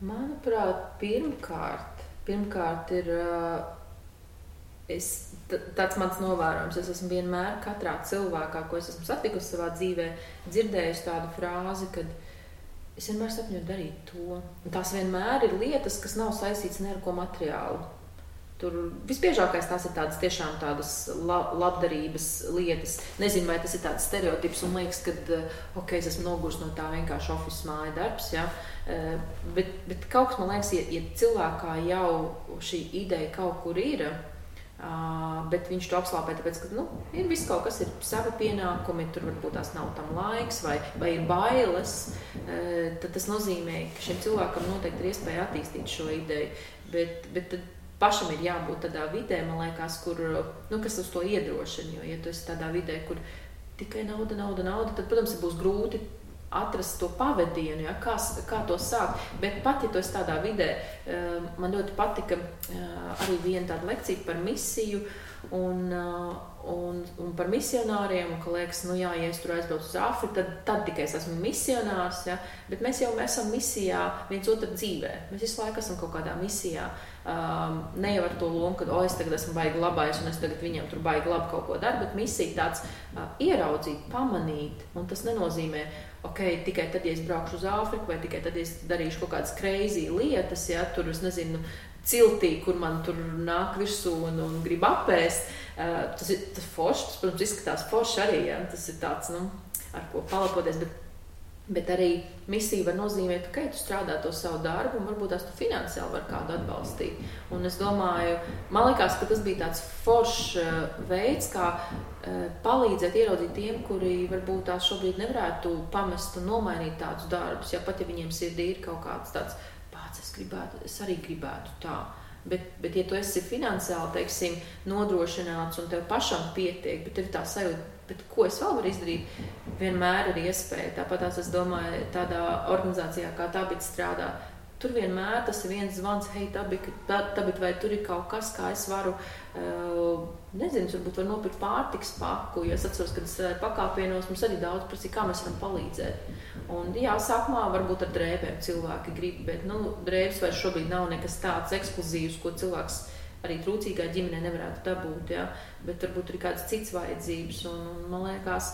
Manuprāt, pirmkārt ir tāds mans novērojums. Es esmu vienmēr katrā cilvēkā, ko es esmu satikusi savā dzīvē, dzirdējusi tādu frāzi, kad es vienmēr sapņoju darīt to. Un tās vienmēr ir lietas, kas nav saistīts ne ar ko materiālu. Tur visbiežākais tās ir tādas tiešām tādas labdarības lietas. Nezinu, vai tas ir tāds stereotips un liekas, ka es esmu nogurs no tā vienkārši office māja darbs, ja? Bet kaut kas man liekas, ja cilvēkā jau šī ideja kaut kur ir, bet viņš to apslāpē, tāpēc, ka ir viss kaut kas, ir savi pienākumi, tur varbūt tās nav tam laiks vai ir bailes, tad tas nozīmē, ka šim cilvēkam noteikti ir iespēja attīstīt šo ideju, bet tad pašam ir jābūt tādā vidē, man liekas, kur, kas uz to iedrošina, jo, ja tu esi tādā vidē, kur tikai nauda, tad, protams, būs grūti atrast to pavadienu, ja, kā to sākt, bet pat, ja tu esi tādā vidē, man ļoti patika arī viena tāda lekcija par misiju un par misionāriem, un ka liekas, ja es tur aizbraucu uz Āfriku, tad tikai es esmu misionārs, ja, bet mēs esam misijā viens otru dzīvē, mēs visu laiku esam kaut kādā misijā, ne jau ar to lomu, ka es tagad esmu baigi labais un es tagad viņam tur baigi labi kaut ko daru, bet misija tāds ieraudzīt, pamanīt, un tas nenozīmē, tikai tad, ja es braukšu uz Āfriku, vai tikai tad, ja es darīšu kaut kādas crazy lietas, ja, tur, es nezinu, ciltī, kur man tur nāk virsū un grib apēst, tas ir forši, tas, protams, izskatās forši arī, ja, tas ir tāds, ar ko palapoties, bet arī misija var nozīmēt, ka tu strādā to savu darbu un varbūt tās tu finansiāli var kādu atbalstīt. Un es domāju, man liekas, ka tas bija tāds foršs veids, kā palīdzēt ieraudzīt tiem, kuri varbūt tās šobrīd nevarētu pamest un nomainīt tādus darbus, ja pat ja viņiem sirdī ir kaut kāds tāds es arī gribētu tā. Bet ja tu esi finansiāli, teiksim, nodrošināts un tev pašam pietiek, bet tev tā sajūta, bet ko es vēl varu izdarīt, vienmēr ir iespēja. Tāpat es domāju, tādā organizācijā kā tā, bet strādā, tur vienmēr tas ir viens zvans, hei, Tabit, vai tur ir kaut kas, kā es varu, nezinu, varbūt var nopirkt pārtikas paku, jo es atceros, kad es pakāpienos, mums arī daudz prasīja, kā mēs varam palīdzēt. Un jā, sākumā varbūt ar drēbēm cilvēki grib, bet, drēbes vairs šobrīd nav nekas tāds ekskluzīvs, ko cilvēks arī trūcīgā ģimenē nevarētu dabūt, jā, bet varbūt ir kādas cits vajadzības, un man liekas,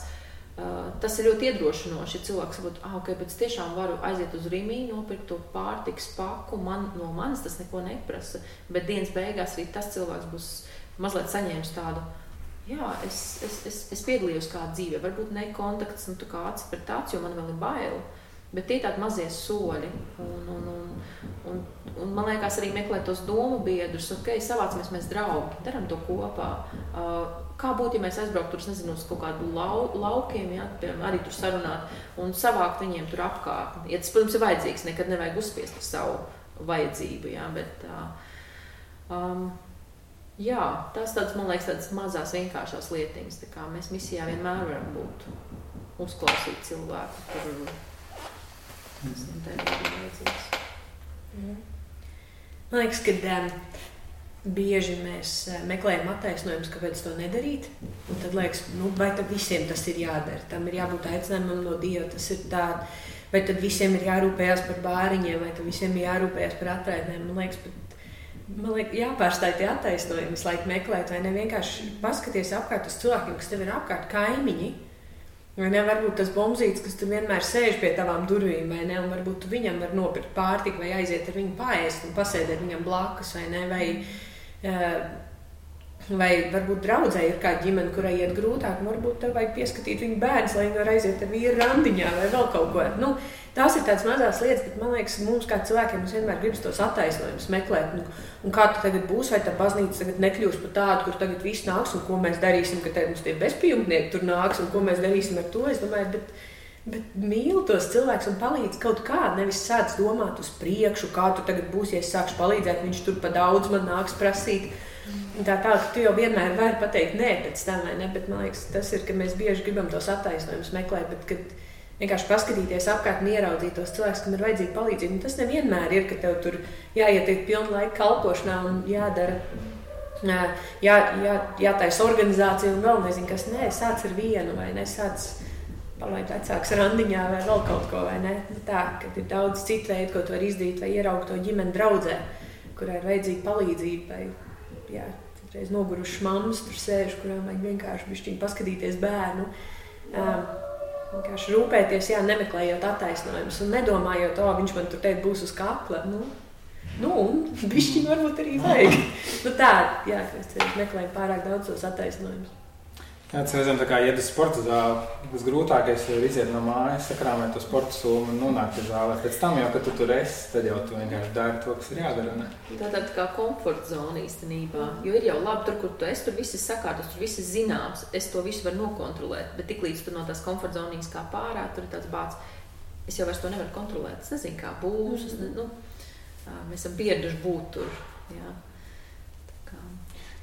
tas ir ļoti iedrošinoši, ja cilvēks saprot, ok, bet es tiešām varu aiziet uz Rimi, nopirkt to pārtikas paku, no manis tas neko neprasa, bet dienas beigās arī tas cilvēks būs mazliet saņēmis tādu, jā, es piedalījos kādā dzīvē, varbūt ne kontakts, tā kā acis pret aci, jo man vēl ir baila, bet tie tādi mazie soļi, un man liekas arī meklēt tos domu biedrus, ok, savācamies mēs draugi, daram to kopā, kā būtu, ja mēs aizbrauktu tur, nezinu, uz kaut kādu laukiem, jā, piemēram, arī tur sarunāt un savākt viņiem tur apkārtni. Ja tas, protams, ir vajadzīgs, nekad nevajag uzspiest ar savu vajadzību, jā, bet jā, tas tāds, man liekas, tādas mazās vienkāršās lietiņas, tā kā mēs misijā vienmēr varam būt, uzklausīt cilvēku, kur tā ir vajadzīgs. Man liekas, ka bieži mēs meklējam attaisnojumus, kāpēc to nedarīt. Un tad liekas, vai tad visiem tas ir jādara? Tam ir jābūt aicinājumam no Dieva, tas ir tā. Vai tad visiem ir jārūpējās par bāriņiem, vai tad visiem ir jārūpējās par atraitnēm? Man liekas, jāpārstāj tie attaisnojumi, visu laiku meklēt, vai ne vienkārši paskaties apkārt uz cilvēkiem, kas tev ir apkārt, kaimiņi. Vai ne, varbūt tas bombzītis, kas tu vienmēr sēž pie tavām durvīm, vai ne, un varbūt tu viņam var nopirkt pārtiku, vai aiziet ar viņu paēst un pasēdēt viņam blakus, vai ne, vai varbūt draudzē ir kāda ģimene, kurai iet grūtāk, un varbūt tev vajag pieskatīt viņu bērns, lai viņi var aiziet ar vīru randiņā vai vēl kaut ko. Tās ir tādas mazās lietas, bet man liekas, mums kā cilvēkiem mums vienmēr gribas tos attaisnojumus meklēt. Un kā tu tagad būs, vai tā baznīca tagad nekļūs par tādu, kur tagad viss nāks, un ko mēs darīsim, ka tagad mums tie bezpajumtnieki tur nāks, un ko mēs darīsim ar to. Es domāju, bet mīli tos cilvēkus un palīdz kaut kā, nevis sāc domāt uz priekšu, kā tu tagad būsi, ja es sākšu palīdzēt, viņš tur pa daudz man nāks prasīt. Tā, ka tu jau vienmēr vari pateikt nē pēc tam, vai ne, bet man liekas, tas ir, ka mēs bieži gribam tos attaisnojumus meklēt, bet kad vienkārši paskatīties apkārt un ieraudzīt tos cilvēkus, kam ir vajadzīga palīdzība. Un tas nevienmēr ir, ka tev tur jāietiek pilnu laiku kalpošanā un jādara, jātaisa organizācija un vēl nezinu kas. Nē, sāc ar vienu vai ne, sāc palaid vecāks randiņā vai vēl kaut ko, vai ne. Tā, kad ir daudz citu veidu, ko tu vari izdarīt vai ieraugt to ģimeni draudzē, kurā ir vajadzīga palīdzība vai, reiz nogurušas mammas tur sēž, kurām vajag vienkārši bišķiņ paskatīties bērnu. Vienkārši rūpēties, nemeklējot attaisnojumus un nedomājot, viņš man tur teikt būs uz kakla. Un bišķiņ varbūt arī vajag. Tā, mēs meklējam pārāk daudz tos attaisnojumus. Tas reizēm tā kā iet uz sporta zāli, tas grūtākais ir iziet no mājas, sakrāmēt to sporta sūmu un nonākt uz zāli. Pēc tam jau, kad tu tur esi, tad jau tu vienkārši dari to, kas ir jādara. Ne? Tā tāda kā komforta zona īstenībā, jo ir jau labi tur, kur tu esi, tur viss ir sakārtos, tur viss ir zināms, es to visu varu nokontrolēt, bet tiklīdz tu no tās komforta zonijas kā pārā, tur ir tāds bāds, es jau vairs to nevaru kontrolēt, es nezinu, kā būs, mēs esam pieraduši būt tur, jā.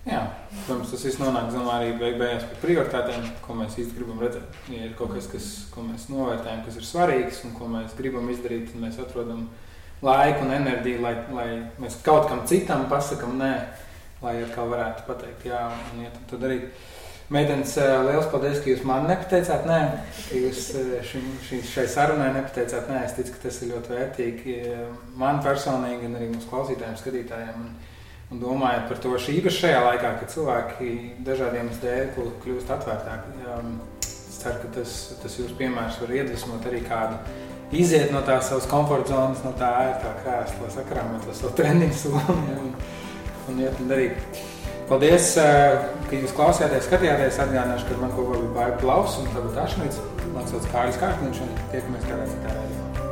Jā, protams, tas viss nonāk arī beigās pie prioritātēm, ko mēs īsti gribam redzēt. Ja ir kaut kas, ko mēs novērtējam, kas ir svarīgs un ko mēs gribam izdarīt, tad mēs atrodam laiku un enerģiju, lai mēs kaut kam citam pasakam nē, lai atkal varētu pateikt jā un iet un to darīt. Meitenes, liels paldies, ka jūs man nepateicāt nē, ka jūs šai sarunai nepateicāt nē. Es ticu, ka tas ir ļoti vērtīgi man personīgi un arī mūsu klausītājiem, skatītājiem. Un domājot par to īpaši šajā laikā, kad cilvēki dažādiem dēļ kļūst atvērtāki. Es ceru, ka tas jūsu piemērs var iedvesmot arī kādu iziet no tās savas komforta zonas, no tā ērtā krēsla, sakrāmēt to savu treniņu somu un iet un darīt. Paldies, ka jūs klausījāties, skatījāties. Atgādināšu, ka man kopā bija Baiba Klaus un tagad Ašmits. Man sauc Kārlis Kārkliņš un tiekamies kādā citā raidījumā.